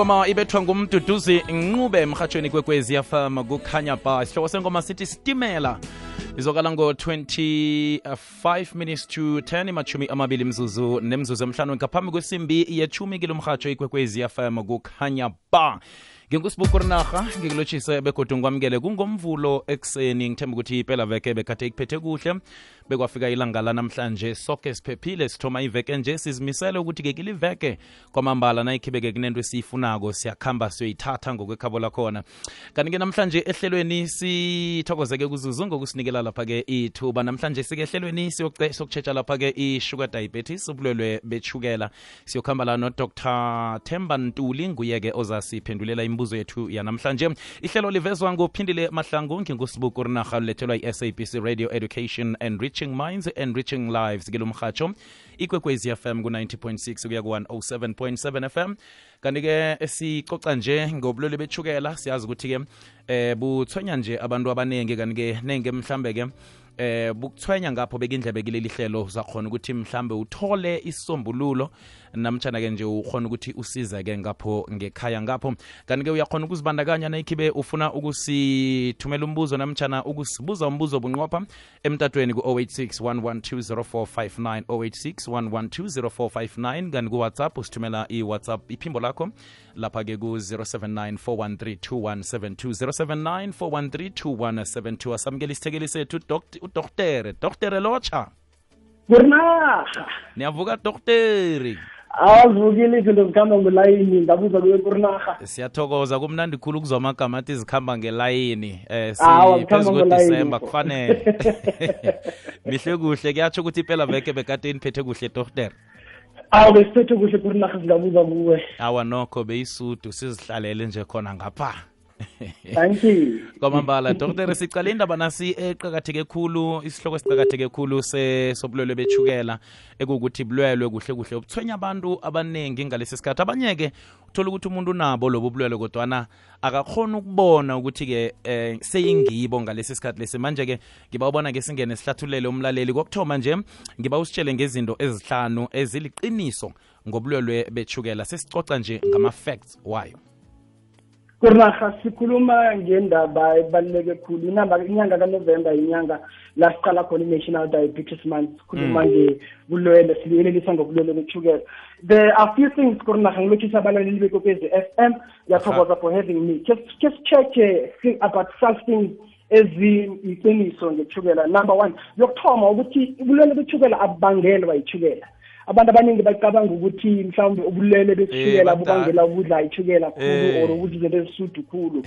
ingoma ibethwa ngumduduzi Ncube emhathweni kwekwezi FM kukhanya ba. Isihloko sengoma sithi Stimela. Izokala ngo 5 to 10 imachumi amabili mzuzu nemzuzu emhlanu ngaphambi kwesimbi yechumi kilomhatsho ikwekwezi FM kukhanya ba. Ngingusibukurnarha ngikulochise begodu ngwamkele kungomvulo ekseni ngithemba ukuthi iphela veke bekade ikuphethe kuhle bekwafika ilanga la namhlanje sonke siphephile sithoma iveke nje sizimisele ukuthi ke kiliveke kwamambala nayikhibeke kunento esiyifunako siyakhamba siyoyithatha ngokwekhabo lakhona kanti ke namhlanje ehlelweni sithokozeke kuzuzu ngokusinikela lapha ke ithuba namhlanje sike ehlelweni siyokutshetsha lapha ke i-sugar diabetes ubulwelwe bechukela siyokhamba la no Dr. Themba Ntuli nguye ke ozasiphendulela imibuzo yethu yanamhlanje. Ihlelo livezwa ngophindile mahlangu ngingusibukurnarha lethelwa i-SABC Radio Education Enriching Minds Enriching Lives kilomhatsho ikwekwezi FM ku-90.6 kuya ku-107.7 FM kanti ke esicoca nje ngobulwelwe bechukela siyazi ukuthi ke buthwenya nje abantu abaningi kanti ke nenge mhlambe ke bukuthwenya ngapho bekindlebe kileli hlelo zakhona ukuthi mhlambe uthole isombululo namtjana ke nje ukhona ukuthi usizeke ngapho ngekhaya ngapho kanti ke uyakhona ukuzibandakanya nayikhibe ufuna ukusithumela umbuzo namtjana ukusibuza umbuzo bunqopha emtatweni ku-086 086 kanti ku-WhatsApp usithumela i-WhatsApp iphimbo lakho lapha ke ku-079 413 2172 asamukela isithekeli sethu Dr. Locha. Kurnaha. Niyavuka Dr. Awuvukile izinto zikhamba ngelayini ngabuza kuye Kurnaha. Siyathokoza kumnandi khulu kuzwa amagama athi zikhamba ngelayini. Siphezulu kuDisemba kufanele. Mihle kuhle kuyatsho ukuthi iphela veke bekade iniphethe kuhle Dr. Besiphethe kuhle Kurnaha ngabuza kuwe. Awa nokho beyisudu sizihlalele nje khona ngapha. Thank you. Kwamambala Dr. sicala indaba nasi eqhakatheke khulu isihloko siqhakatheke khulu sobulwelwe bechukela ekukuthi bulwelwe kuhle kuhle ubuthwenya abantu abanengi ngalesi sikhathi abanyeke uthola ukuthi umuntu nabo lobo bulwelwe kodwana akakhona ukubona ukuthi ke seyingibo ngalesi sikhathi lesi manje ke ngiba ubona ke singene sihlathulele umlaleli kokthoma nje ngiba usitshele ngezinto ezihlanu eziliqiniso ngobulwelwe bechukela sesicoca nje ngama facts wayo. Kurnaha sikhuluma ngendaba ebaluleke khulu inyanga kaNovember inyanga la siqala khona i-National Diabetes Month sikhuluma ngebulwelwe sibuyelelisa ngobulwelwe bechukela. There are few things Kurnaha ngilochisa abalaleli bekwekwezi FM yathokoza for having me. Just check about something eziyiqiniso ngechukela. Number 1 yokuthoma ukuthi ubulwelwe bechukela abubangelwa yichukela. Abantu abaningi bacabanga ukuthi mhlawumbe ubulwele bechukela bubangela ukudla ichukela khulu or ukudla izinto ezisudu khulu.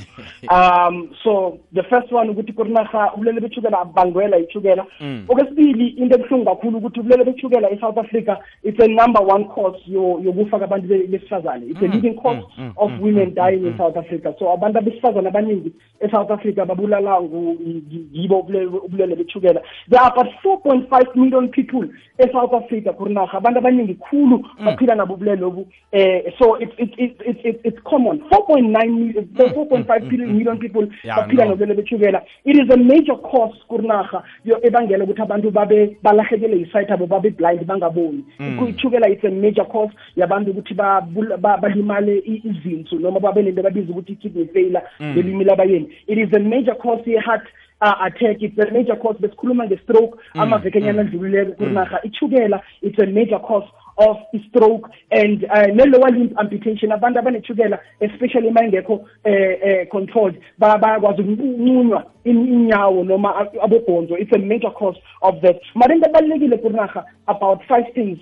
So the first one ukuthi Kurnaha ubulwele bechukela abangela ichukela. Okwesibili into ebuhlungu kakhulu ukuthi ubulwele bechukela eSouth Africa it's a number 1 cause yokufa kwabantu besifazane. It's a leading cause of women dying in South Africa. So abantu besifazane abaningi eSouth Africa babulala yibo ubulwele bechukela. There are about 4.5 million people eSouth Africa Kurnaha abantu abaningi khulu baphila nabo ubulwele lobu so it's common 4.5 million people baphila nobulwele bechukela. It is a major cause Kurnaha ebangela ukuthi abantu babe balahekele isight abo babe blind bangaboni. Ichukela it's a major cause yabantu ukuthi balimale izinso noma babe nento babiza ukuthi kidney failure belimile abayeni. It is a major cause heart attack, it's a major cause besikhuluma nge-stroke amavekenyana adlulileko Kurnaha ichukela it's a major cause of stroke and ne-lower limb amputation abantu abanechukela especially mayingekho controlled bayakwazi ukunqunywa inyawo noma abobhonzo. It's a major cause of that. Mara into ebalulekile Kurnaha about 5 things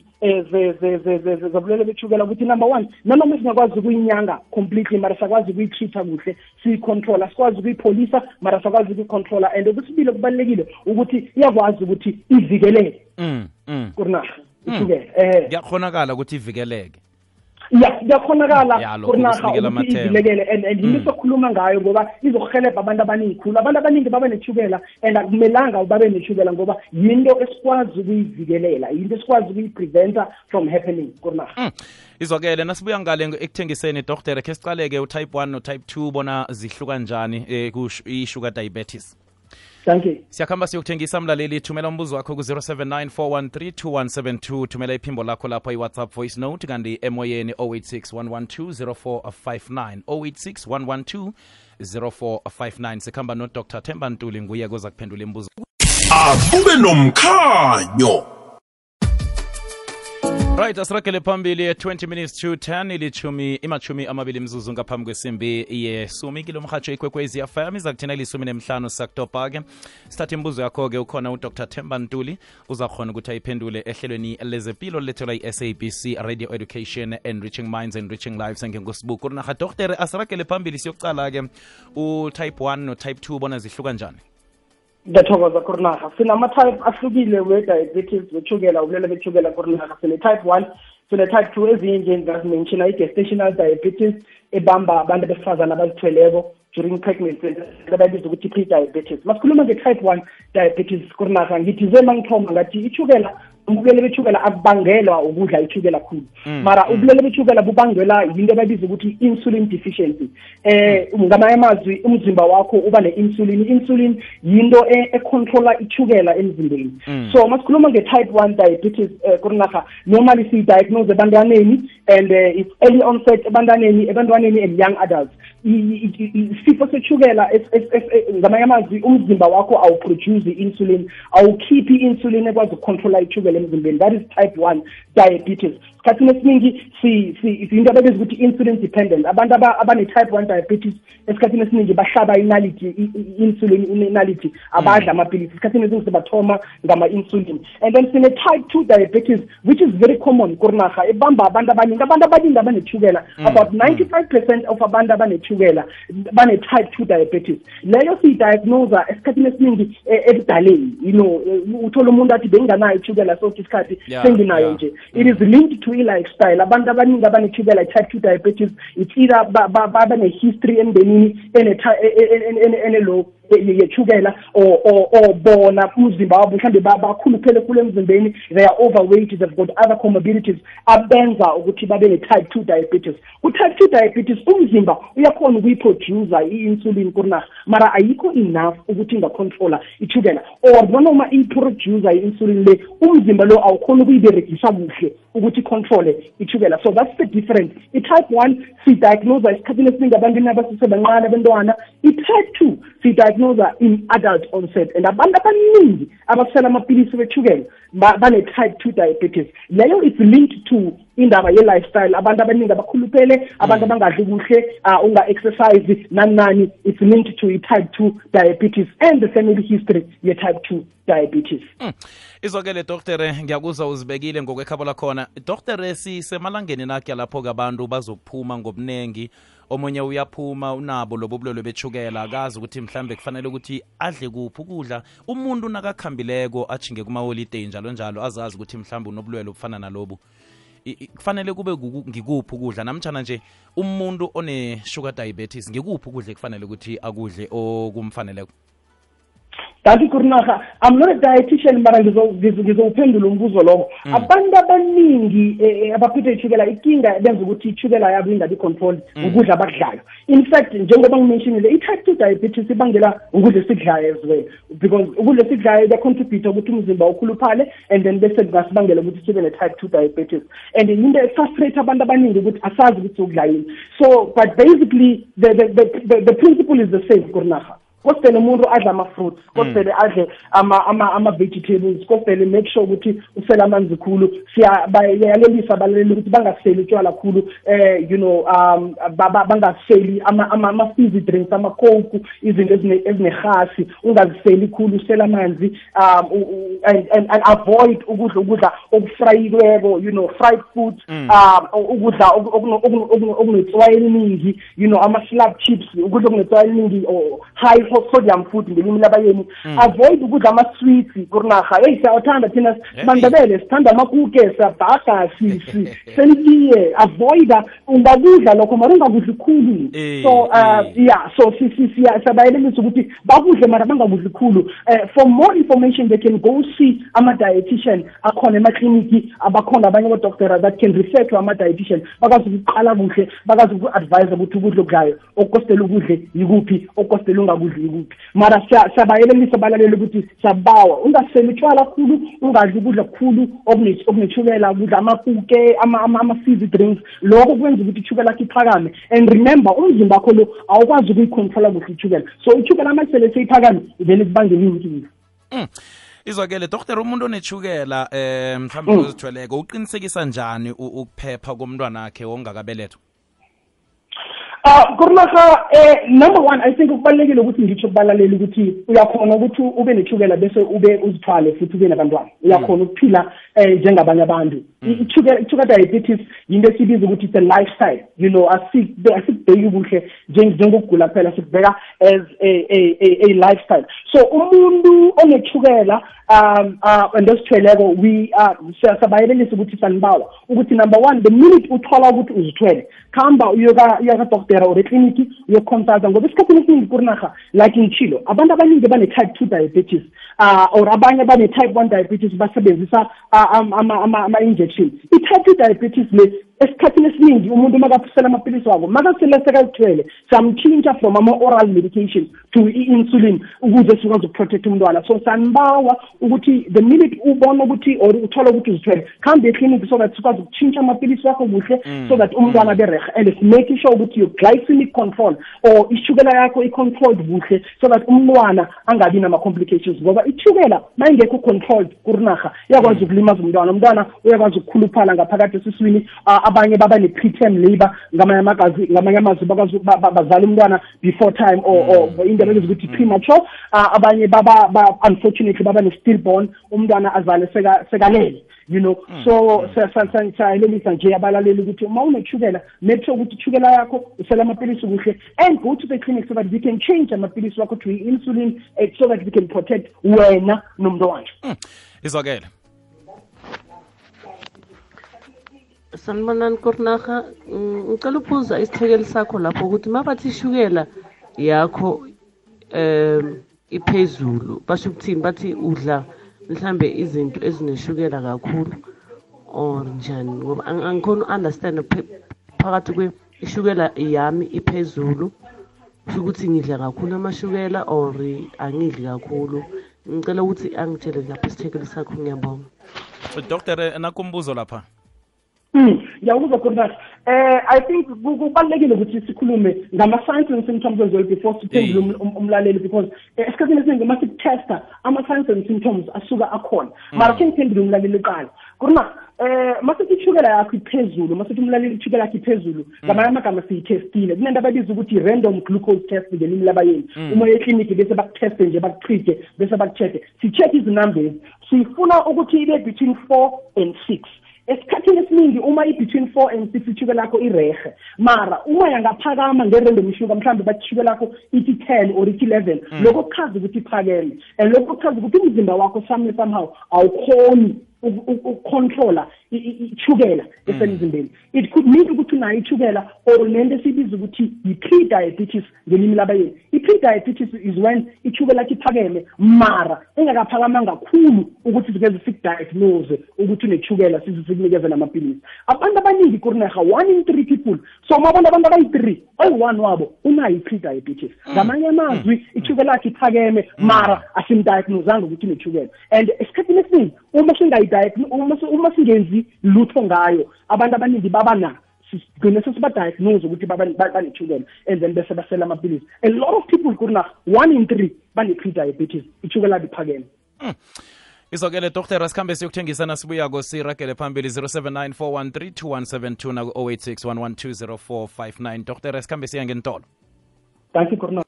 zobulwele bechukela ukuthi number 1 noma singakwazi ukuyinyanga completely mara sakwazi ukuyitreata kuhle siyicontrola sikwazi ukuyipholisa mara sakwazi ukuyicontrola and okwesibili kubalulekile ukuthi iyakwazi ukuthi ivikeleke Kurnaha ichukela kuyakhonakala ukuthi ivikeleke. Yakhonakala Kurnaha ukuthi ivilekele and yini sokhuluma ngayo ngoba izokuhelebha abantu abaningi khulu abantu abaningi babe nechukela and akumelanga babe nechukela ngoba yinto esikwazi ukuyivikelela yinto esikwazi ukuyipreventa from happening Kurnaha. Izokele nasibuya ngale ekuthengiseni Dr. ke sicaleke utype 1 no type 2 bona zihluka kanjani ku sugar diabetes. Thank you. Siyakhamba siyokuthengisa mlaleli, thumela umbuzo wakho ku-079 thumela iphimbo lakho lapho i-WhatsApp voice note kanti emoyeni 086 112 0459 086 112 0459. Sikhamba no-Dr. Themba Ntuli, nguye koza kuphendula imibuzo. Akube nomkhanyo. Right, asiragele phambili 20 minutes to 10 imachumi amabili mzuzu ngaphambi kwesimbi yesumi kilo mhatsho ikwekwezi FM iza kuthina ilisumi nemhlanu sakutopha-ke. Sithatha imibuzo yakho-ke, ukhona uDr. Themba Ntuli uzakhona ukuthi ayiphendule ehlelweni lezempilo lethelwa i-SABC Radio Education, Enriching Minds, Enriching Lives. Ngengosibuku naha Dr. asiragele phambili siyokucala-ke u-type 1 no-type 2 bona zihluka njani? Ngiyathokoza Kurnaha. Sinama-type ahlukile we-diabetes, wethukela, ubulwele bethukela Kurnaha. Sine-type 1, sine-type 2 ezinye ngazimenshina i-gestational diabetes ebamba abantu besifazane abazithweleko during pregnancy, abayibiza ukuthi pre-diabetes. Masikhuluma nge-type 1 diabetes Kurnaha, ngithi ngithoma ngathi ithukela, ubulwele bethukela akubangelwa ukudla ithukela kakhulu, mara ubulwele bethukela bubangelwa yinto abayibiza ukuthi insulin deficiency. Ngamanye amazwi umzimba wakho uba ne-insulin. Insulin yinto econtrola ithukela emzimbeni. So masikhuluma nge-type 1 diabetes Kurnaha, normally siyi-diagnose ebantwaneni and it's early onset ebantwaneni and young adults. Isifo sethukela ngamanye amazwi umzimba wakho awuproduce i-insulin, awukhiphi i-insulin ekwazi ukucontrola ithukela emzimbeni. That is type 1 diabetes. Esikhathini esiningi into ababiza ukuthi insulin dependent. Abantu abane-type 1 diabetes esikhathini esiningi bahlaba insulin inality, abadla amapilisi. Esikhathini esiningi sibathoma ngama-insulin. And then sine-type 2 diabetes, which is very common Kurnaha, ebamba abantu abaningi abanethukela. About 95% of abantu abanethukela bane-type 2 diabetes. Leyo siyidiagnose esikhathini esiningi ebudaleni. Uthola umuntu athi benganayo ithukela sokuthi isikhathi senginayo nje. It is linked to i-lifestyle. Abantu abaningi abanethukela type 2 diabetes, it's either bane-history emndenini ene-low yethukela or bona umzimba wabo mhlambe bakhuluphele kule emzimbeni, they are overweight, they've got other comorbidities abenza ukuthi babe ne-type 2 diabetes. Ku-type 2 diabetes umzimba uyakhona ukuyiproducer i-insulin Kurnaha, mara ayikho enough ukuthi ingacontrola ithukela, or noma iproducer i-insulin le umzimba lo awukhona ukuyiberegisa kuhle ukuthi controle ithukela. So that's the difference. I-type 1 sidiagnose esikhathini esiningi abantwini abasesebancane abantwana. I-type 2 sidiagnose in adult onset, and abantu abaningi abasela amapilisi bethukela bane-type 2 diabetes. Leyo is linked to indaba ye-lifestyle. Abantu abaningi abakhuluphele, abantu abangadli kuhle, unga-exercise nani, it's linked to i-type 2 diabetes and the family history ye-type 2 diabetes. Izokele Dr. ngiyakuzwa uzibekile ngokwekhabo lakhona. Dr. sisemalangeni nakhe lapho abantu bazokuphuma ngobunengi, omunye uyaphuma unabo lobo bulwele bethukela, akazi ukuthi mhlambe kufanele ukuthi adle kuphi ukudla. Umuntu nakakhambileko achinge kuma-holiday njalo azazi ukuthi mhlambe unobulwele obufana nalobu, kufanele kube ngikuphi ukudla, namtjana nje umuntu one-sugar diabetes ngikuphi ukudla kufanele ukuthi akudle okumfaneleko? Kanti Kurnaha, I'm not a dietitian, mara ngizowuphendula umbuzo lowo. Abantu abaningi abaphethwe ithukela, ikinga benza ukuthi ithukela yabo ingabi controlled ukudla abakudlayo. In fact, njengoba ngimentionile, i-type 2 diabetes ibangela ukudla esikudlayo as well, because ukudla esikudlayo kuya-contribute ukuthi umzimba ukhuluphale, and then bese kungasibangela ukuthi sibe ne-type 2 diabetes. And into efrustrate abantu abaningi ukuthi asazi ukuthi ukudla yini. So, but basically, the principle is the same Kurnaha. Kosele umuntu adla ama-fruits, kosele adle ama-vegetables, kosele make sure ukuthi usela amanzi khulu. Siyayalelisa abaleleli ukuthi bangaseli utshwala khulu, bangaseli ama-fizzy drinks, ama-coke, izinto ezinehasi, ungaziseli khulu, usela amanzi, and avoid ukudla okufrayiweko, fried foods, ukudla okunetswayi eliningi, ama-slab chips, ukudla okunetswayi eliningi, or high sodium food ngelimi labayeni. Avoid ukudla ama-sweets Kurnaha. Siyawuthanda thina Mandebele, sithanda amakuke, siyabhaga, senitiye. Avoid ungakudla lokho mara ungakudli khulu. So siyabayelelisa ukuthi bakudle mara bangakudli khulu. For more information they can go see ama-dietitian akhona emakliniki, abakhona abanye odokotela that can refer to ama-dietitian, bakazi ukuqala kuhle, bakazi uku-advise ukuthi ukudla okudlayo okukostela ukudle yikuphi, okukostela ungakudli ungazi kuphi mara siyabayelelisa abalaleli ukuthi siyabawa ungaseli utshwala kakhulu ungadli ukudla kukhulu okunethukela ukudla amakuke ama-fizzy drinks lokho kwenza ukuthi ithukela lakho iphakame and remember umzimba wakho lo awukwazi ukuyicontrola kuhle ithukela so ithukela amasele seyiphakame ivele kubangela inkinga. Izwakele Dr. umuntu onethukela mhlawumbe uzithweleko uqinisekisa njani ukuphepha komntwana wakhe ongakabelethwa? Kurnaha number one I think ukubalekile ukuthi ngitsho kubalalela ukuthi uyakhona ukuthi ube nethukela bese ube uzithwale futhi ube nabantwana uyakhona ukuphila njengabanye abantu. Ithukela diabetes yinto esibiza ukuthi it's a lifestyle, you know, asikubheki kuhle njengokugula phela sikubheka as a lifestyle. So umuntu onethukela ndosithweleko we siyabayelelisa ukuthi sanibawa ukuthi number one the minute uthola ukuthi uzithwele khamba uyoka doctor or clinic uyoconsulta ngoba isikhathini esiningi kurinaha like inchilo abantu abaningi bane type 2 diabetes or abanye bane type 1 diabetes basebenzisa ama injections. I-type 2 diabetes le esikhathini esiningi umuntu makaphusela amapilisi wako makasele sekazithwele samchintsha from ama-oral medication to i-insulin ukuze sikwazi ukuprotect umntwana. So sanibawa ukuthi the minute ubona ukuthi or uthola ukuthi uzithwele khambe eclinic so that sikwazi ukuchintsha amapilisi wakho kuhle so that umntwana abe rehe and make sure ukuthi your glycemic control or ishukela yakho i-controlled kuhle so that umntwana angabi nama-complications ngoba ishukela mayingekho controlled kurinaha iyakwazi ukulimaza umntwana uyakwazi ukukhuluphala ngaphakathi esiswini abanye baba ne-preterm labor ngamanye amazwi bazala umntwana before time or into ebizwa ukuthi premature abanye baba unfortunately baba ne-stillborn umntwana azale sekalele, you know. So sayelelisa nje abalaleli ukuthi uma unethukela make sure ukuthi ithukela yakho usela amapilisi kuhle and go to the clinic so that we can change amapilisi wakho to insulin so that we can protect wena nomntwana. Izwakele Sanibonani Kurnaha, ngicela ukubuza isithekeli sakho lapho ukuthi mabathi ishukela yakho iphezulu basho ukuthini bathi udla mhlambe izinto ezineshukela kakhulu or njani ngoba angikhona understand phakathi kwe ishukela yami iphezulu ukuthi ngidla kakhulu amashukela or angidli kakhulu. Ngicela ukuthi angitshele lapho isithekeli sakho ngiyabonga. Dr. nakumbuzo lapha. Ngiyakuzwa Kurnaha. I think kubalekile ukuthi sikhulume ngama-signs and symptoms as well before siphendule umlaleli because esikhathini esiningi uma sikutesta ama-signs and symptoms asuka akhona mara sengiphendule umlaleli qala. Kurnaha masithi ishukela yakho iphezulu masithi umlaleli ishukela yakho iphezulu ngamanye amagama siyithestile kunento ababiza ukuthi random glucose test ngelimi labayeni uma ekliniki bese bakuteste nje bakutrite bese bakucheck si-check izinumbers sifuna ukuthi ibe between 4 and 6. Esikhathini esiningi uma i-between 4 and 6 ishukela lakho irehe mara uma yangaphakama ngerandom ishuka mhlawumbe bathi ishukela lakho ithi 10 or ithi 11 lokho kuchaza ukuthi iphakeme and lokho kuchaza ukuthi umzimba wakho somehow awukhoni ukucontrola ichukela esemzimbeni. It could mean ukuthi unayo ichukela or lento esibiza ukuthi yi-pre-diabetes ngelimi labayeni. I-pre-diabetes is when ichukela lakho iphakeme mara engakaphakamanga kakhulu ukuthi sikeze sikudiagnose ukuthi unechukela sikunikeze namapilisi. Abantu abaningi Kurnaha 1 in 3 people so mabona abantu abayi-3 oyi-1 wabo unayo i-pre-diabetes. Ngamanye amazwi ichukela lakho iphakeme mara asimdiagnosanga ukuthi unechukela and esikhathini esiningi uma singenzi lutho ngayo abantu abaningi babana sigcine sesibadiagnose ukuthi banechukela and then bese basela amapilisi. A lot of people Kurnaha 1 in 3 bane-pre-diabetes ichukela liphakeme. Izwakele Dr. Rasikhambe siyokuthengisana sibuyako siragele phambili 0794132172 na 0861120459. Dr. Rasikhambe siya ngentolo. Thank you Kurnaha.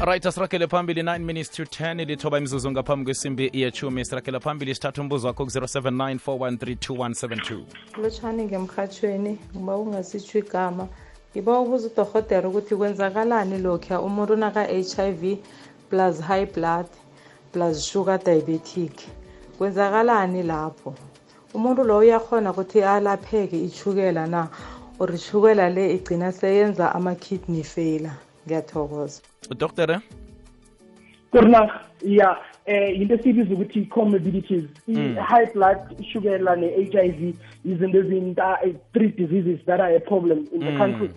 Right, asirakele phambili 9 minutes to 10 lithoba imizuzu ngaphambi kwesimbi yechumi. Sirakele phambili sithatha umbuzo wakho ku-0794132172. Lotshani ngemkhathweni uba ungasitsho igama ngiba ubuza udorhodera ukuthi kwenzakalani lokhu umuntu naka-HIV plus high blood plus sugar diabetic kwenzakalani lapho umuntu lo uyakhona ukuthi alapheke ichukela na or ichukela le igcina seyenza ama-kidney failure. Ngiyathokoza. Doctor Kurna, yeah, into esibiza ukuthi comorbidities, high blood sugar and HIV is in the 3 diseases that are a problem in the country.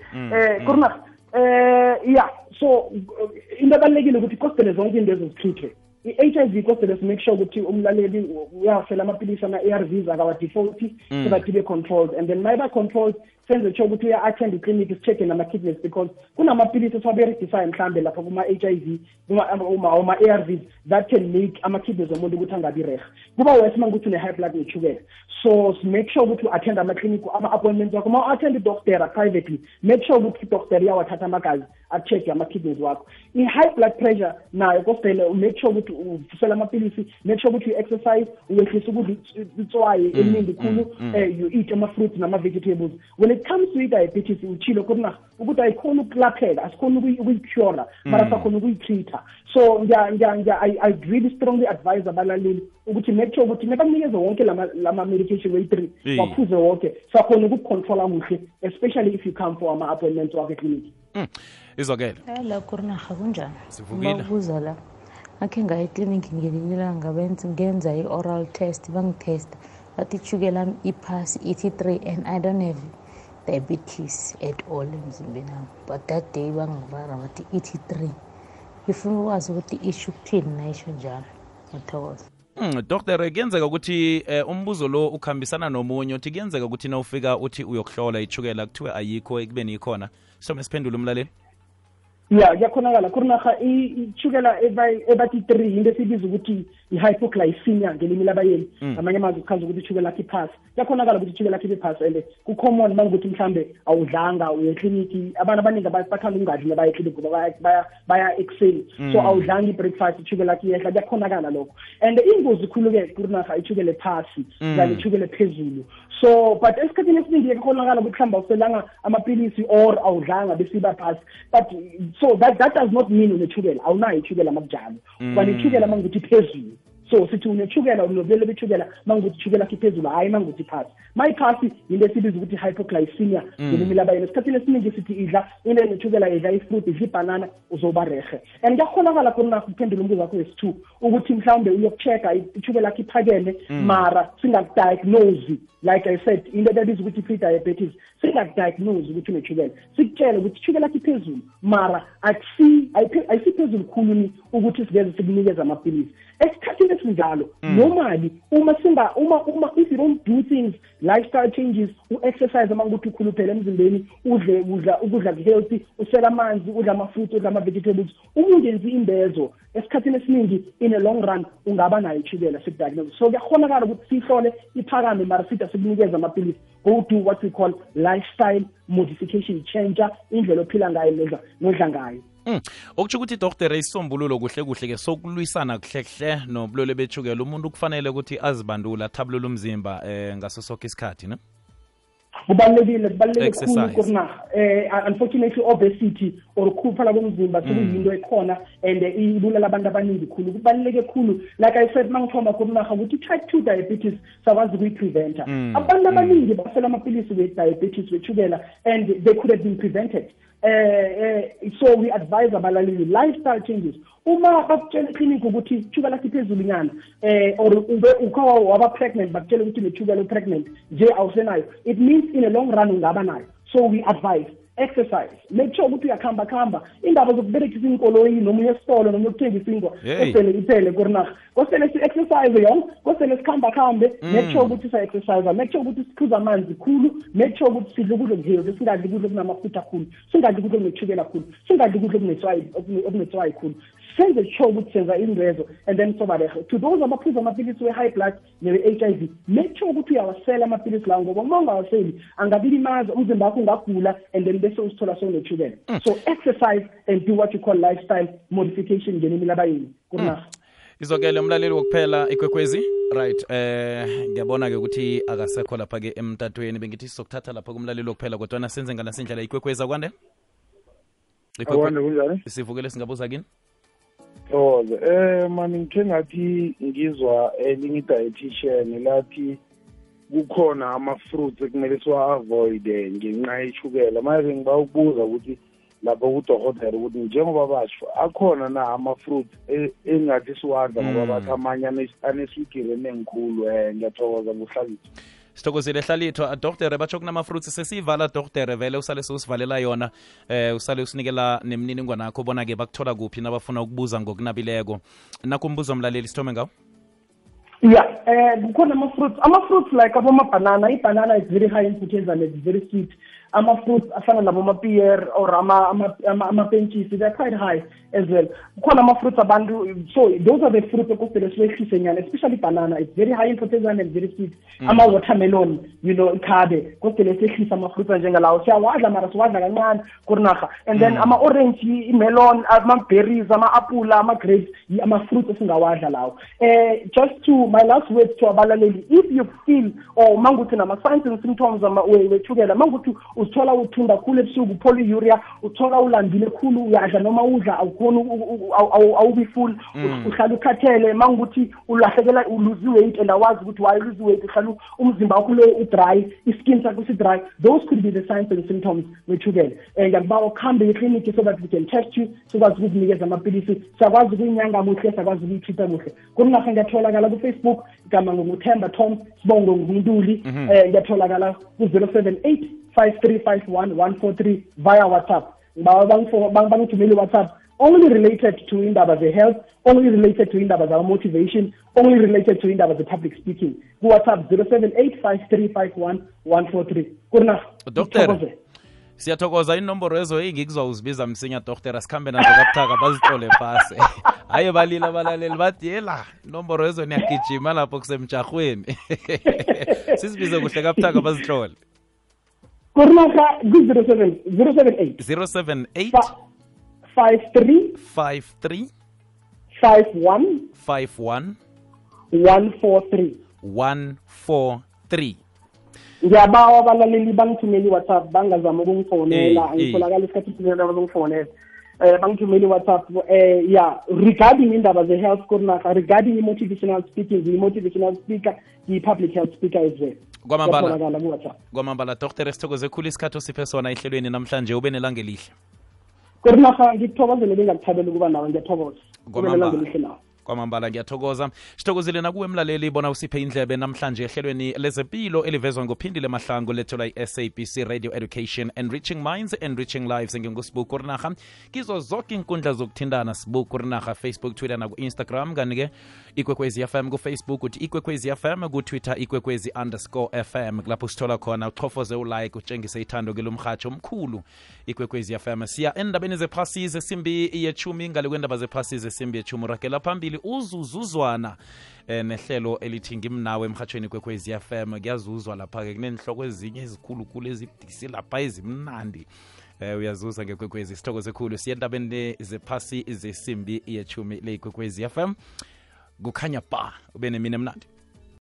Kurna, yeah, so into abalulekile ukuthi kostele zonke into ezizitreatwe. I-HIV kostele make sure ukuthi umlaleli uyafela amapilisi ama-ARVs akawa-default so that ibe controlled, and then maybe controlled senze sure ukuthi uya-attend i-clinic si-check nama-kidneys, because kunamapilisi esiwaberegisayo mhlambe lapha kuma-HIV uma-ARVs that can make ama-kidneys omuntu ukuthi angabi reha. Kuba wesi uma ukuthi une-high blood ne-sugar, so make sure ukuthi u-attend ama-clinic ama-appointments wakho. Uma u-attend i-doctor privately, make sure ukuthi i-doctor iyawathatha amagazi a-check ama-kidneys wakho. I-high blood pressure nayo kostele make sure ukuthi uvusela amapilisi, make sure ukuthi u-exercise, uyehlisa ukudla itswayi eningi khulu, you eat ama-fruits nama-vegetables. When it comes to i-diabetes, uchilo kurna ukuthi ayikhona ukulapheka, asikhona ukuyicura, mara sakhona ukuyitreata. So I really strongly advise abalaleli ukuthi make sure ukuthi nebanikeze wonke lama medication way-3 waphuze wonke, sakhona ukucontrola kuhle, especially if you come for ama-appointments wakhe clinic. Izokele la kurnaha kunjani? Sivukile. Babuza la akhe ngaye eclinic ngelinilanga ngenza i-oral test, bangitesta bathi ishukela lami iphasi ithi 3 and I don't have diabetes at all emzimbeni wami, but that day bangibara bathi ithi 3. Ngifuna ukwazi ukuthi isho ukuthini nayisho njalo. Ngiyathokoza. Dr. kuyenzeka ukuthi umbuzo lo ukhambisana nomunye uthi kuyenzeka ukuthi na ufika uthi uyokuhlola ishukela kuthiwe ayikho ekubeni ikhona, so mesiphendula umlaleli. Yeah, yakhonakala kurnaha ishukela ebathi 3 into esibiza ukuthi i-hypoglycemia ngelimi labayeni, amanye amazwi kuchaza ukuthi ishukela lakhe iphasi. Yakhonakala ukuthi ishukela lakhe iphasi, and ku-common mangukuthi mhlambe awudlanga uye ekliniki. Abantu abaningi bathanda ukungadli nabaya ekliniki ngoba baya ekuseni, so awudlanga i-breakfast, ishukela lakhe iyehla. Yakhonakala lokho, and ingozi khulu-ke kurnaha ishukela ephasi kanye ishukela ephezulu. So but esikhathini esiningi yakhonakala ukuthi mhlawumbe awuselanga amapilisi or awudlanga besiba phasi, but so that does not mean uneshukela, awunayo ishukela makujalo. Kwani ishukela mangukuthi phezulu, so sithi uneshukela unobulele beshukela mangukuthi ishukela lakhe phezulu, hayi mangukuthi phasi. Mayiphasi into esibiza ukuthi hypoglycemia ngelimi labayeni. Esikhathini esiningi sithi idla into eneshukela, idla ifruit, idla ibhanana, uzoba rehe. And kuyakhonakala khona ukuphendula umbuzo wakho wesi-2 ukuthi mhlawumbe uyokuchecka ishukela lakhe iphakeme, mara singakudiagnose. Like I said, into ebizwa ukuthi pre-diabetes, singakudiagnose ukuthi uneshukela, sikutshele ukuthi ishukela lakhe iphezulu, mara ayisiphezulu khulu ukuthi siveze sikunikeza amapilisi. Esikhathini esinjalo normally uma if you don't do things, lifestyle changes, u-exercise amangukuthi ukhuluphele emzimbeni, ukudla healthy, usela amanzi, udla ama-fruits, udla ama-vegetables, ungenzi imbezo, esikhathini esiningi in a long run ungaba nayo ishukela sikudiagnose. So kuyakhonakala ukuthi sihlole iphakame, mara sithi sikunikeza amapilisi. Go do what we call lifestyle modification, changer indlela ophila ngayo nodla ngayo. Okutsho ukuthi Dr. isisombululo kuhle ke sokulwisana kuhle nobulwele beshukela, umuntu kufanele ukuthi azibandula, athabulule umzimba ngaso sonke isikhathi, ne? Kubalulekile khulu kurna. Unfortunately obesity or ukukhuphala komzimba sekuyinto ekhona and ibulala abantu abaningi khulu. Kubaluleke khulu, like I said mangithoma kurna ukuthi type 2 diabetes sakwazi ukuyi-preventa. Abantu abaningi basela amapilisi we-diabetes weshukela and they could have been prevented. So we advise abalaleli lifestyle changes. Uma bakutshela clinic ukuthi ishukela lakhe iphezulu nyana, or ukhawa waba pregnant bakutshela ukuthi neshukela pregnant nje awusenayo, it means in a long run ungaba nayo. So we advise exercise, make sure ukuthi uyakhamba indaba zokuberekisa inkoloyi noma uyesitolo noma ukuthengisa ingwa kosele iphele kurnaha. Kosele si-exercise yonke, kosele sikhambe, make sure ukuthi sa-exercise, make sure ukuthi sikhuza amanzi khulu, make sure ukuthi sidle ukudla okuhealthy, singadli ukudla okunamafutha khulu, singadli ukudla okuneshukela khulu, singadli ukudla okunetswayi khulu. Senze sure ukuthi senza indwezo, and then sobarehe. To those abaphuza amapilisi we-high blood ne-HIV, make sure ukuthi uyawasela amapilisi lawo, ngoba uma ungawaseli angabilimaza umzimba wakho, ungagula, and then bese usithola sewuneshukela. So exercise and do what you call lifestyle modification ngelimi labayeni kurnaha. Izokele umlaleli wokuphela ikwekwezi, right? Ngiyabona ke ukuthi akasekho lapha ke emtatweni, bengithi sizokuthatha lapha kumlaleli wokuphela, kodwa senze nganasindlela ikwekwezi akwande. Akwande kunjani? Sivukele singabuza kini. Mani ngithe ngathi ngizwa elinye dietitian lathi kukhona ama-fruits ekumele siwa-avoid ngenxa yeshukela. Manje ngiba ukubuza ukuthi lapho kudokotela ukuthi njengoba basho akhona na ama-fruit engathi siwadla ngoba bathi amanye aneswigiri enengikhulu ngiyathokoza nguHlalithwa. Sithokozile Hlalithwa. Doktere batsho kunama-fruits sesiyivala doktere vele usale siwusivalela yona usale usinikela nemininingwane yakho bona-ke bakuthola kuphi nabafuna ukubuza ngokunabileko. Nakho umbuzo mlaleli sithome ngawo. Yeah, kukhona ama-fruits like aboma-banana. I-banana is very high in proteins and it's very sweet. Ama-fruits afana naboma-pear or ama-penchis, they're quite high as well. Kukhona ama-fruits abantu, so those are the fruits okufele siwehlise nyana, especially banana. It's very high in proteins and very sweet. Ama-watermelon, ikhabe, kufele siwehlise ama-fruits njengalawo. Siyawadla mara siwadla kancane kurinaga. And then ama-orange, i-melon, ama-berries, ama-apula, ama-grapes, ama-fruits esingawadla lawo. Just to my last words to abalaleli, if you feel or manguthi nama-signs and symptoms wethukela, manguthi uthola uthunda khulu ebusuku, polyuria, uthola ulambile khulu, uyadla noma udla awukhona awubi full, uhlala ukhathele, manguthi ulahlekelwa uluzi weight and awazi ukuthi why lose weight, uhlala umzimba wakho lo udry, iskin sakho si-dry, those could be the signs and symptoms wethukela. Ngiyakubawa ukhambe ekliniki so that we can test you, sikwazi ukukunikeza amapilisi, siyakwazi ukuyinyanga muhle, siyakwazi ukuyitreata muhle. Kunaga ngiyatholakala ku-Facebook, igama nguThemba Tom, Sibongo nguNtuli, ngiyatholakala ku-078 5351 via WhatsApp. Bangithumele WhatsApp only related to indaba ze-health, only related to indaba za-motivation, only related to indaba ze-public speaking. Ku-WhatsApp 078 5351 Kurna. Doctor, siyathokoza inomboro ezo engikuzwa uzibiza msinya doktora sikhambe nazo kabuthaka bazihlole phasi. Haye balila abalaleli bathi yela inomboro ezo niyagijima lapho kusemjahweni. Sisibize kuhle kabuthaka bazihlole. Kurnaga 078 53 51 143. Ngiyabawa abalaleli bangithumeli WhatsApp bangazama ukungifonela, ngitholakala isikhathi esinye abazongifonela. Bangithumeli WhatsApp regarding indaba ze-health Kurnaga, regarding motivational speaking, motivational speaker, public health speaker as well. Kwamambala Dr. Sithokoze khulu isikhathi osiphe sona ehlelweni namhlanje, ube nelanga elihle. Kurnaga ngikuthokozele bengakuthabela ukuba nawe, ngiyathokoza. Kwamambala ngiyathokoza. Sithokozile nakuwe emlaleli bona usiphe indlebe namhlanje ehlelweni lezempilo elivezwa ngophindile mahlango lethola i-SABC Radio Education, Enriching Minds, Enriching Lives. NginguSibuku Kurnaga kizo zonke inkundla zokuthindana, Sibuku Kurnaga, Facebook, Twitter naku Instagram, kanike Ikwekwezi FM ku Facebook uthi Ikwekwezi FM, ku Twitter Ikwekwezi_FM. Lapho sithola khona uchofoze ulike, utshengise ithando kilomhatsho omkhulu Ikwekwezi FM. Siya endabeni zephasi zesimbi ye-10 ngale kwendaba zephasi zesimbi ye-10 rakela phambili uzuzuzwana nehlelo elithi ngimnawe emhathweni Kwekwezi FM. Kuyazuzwa lapha-ke kunenhloko ezinye ezikhulukhulu ezidisi lapha ezimnandi. Uyazuza ngekwekwezi. Sithokoze khulu siya endabeni zephasi zesimbi ye-10 le Kwekwezi FM. Kukhanya ba ube nemini emnandi.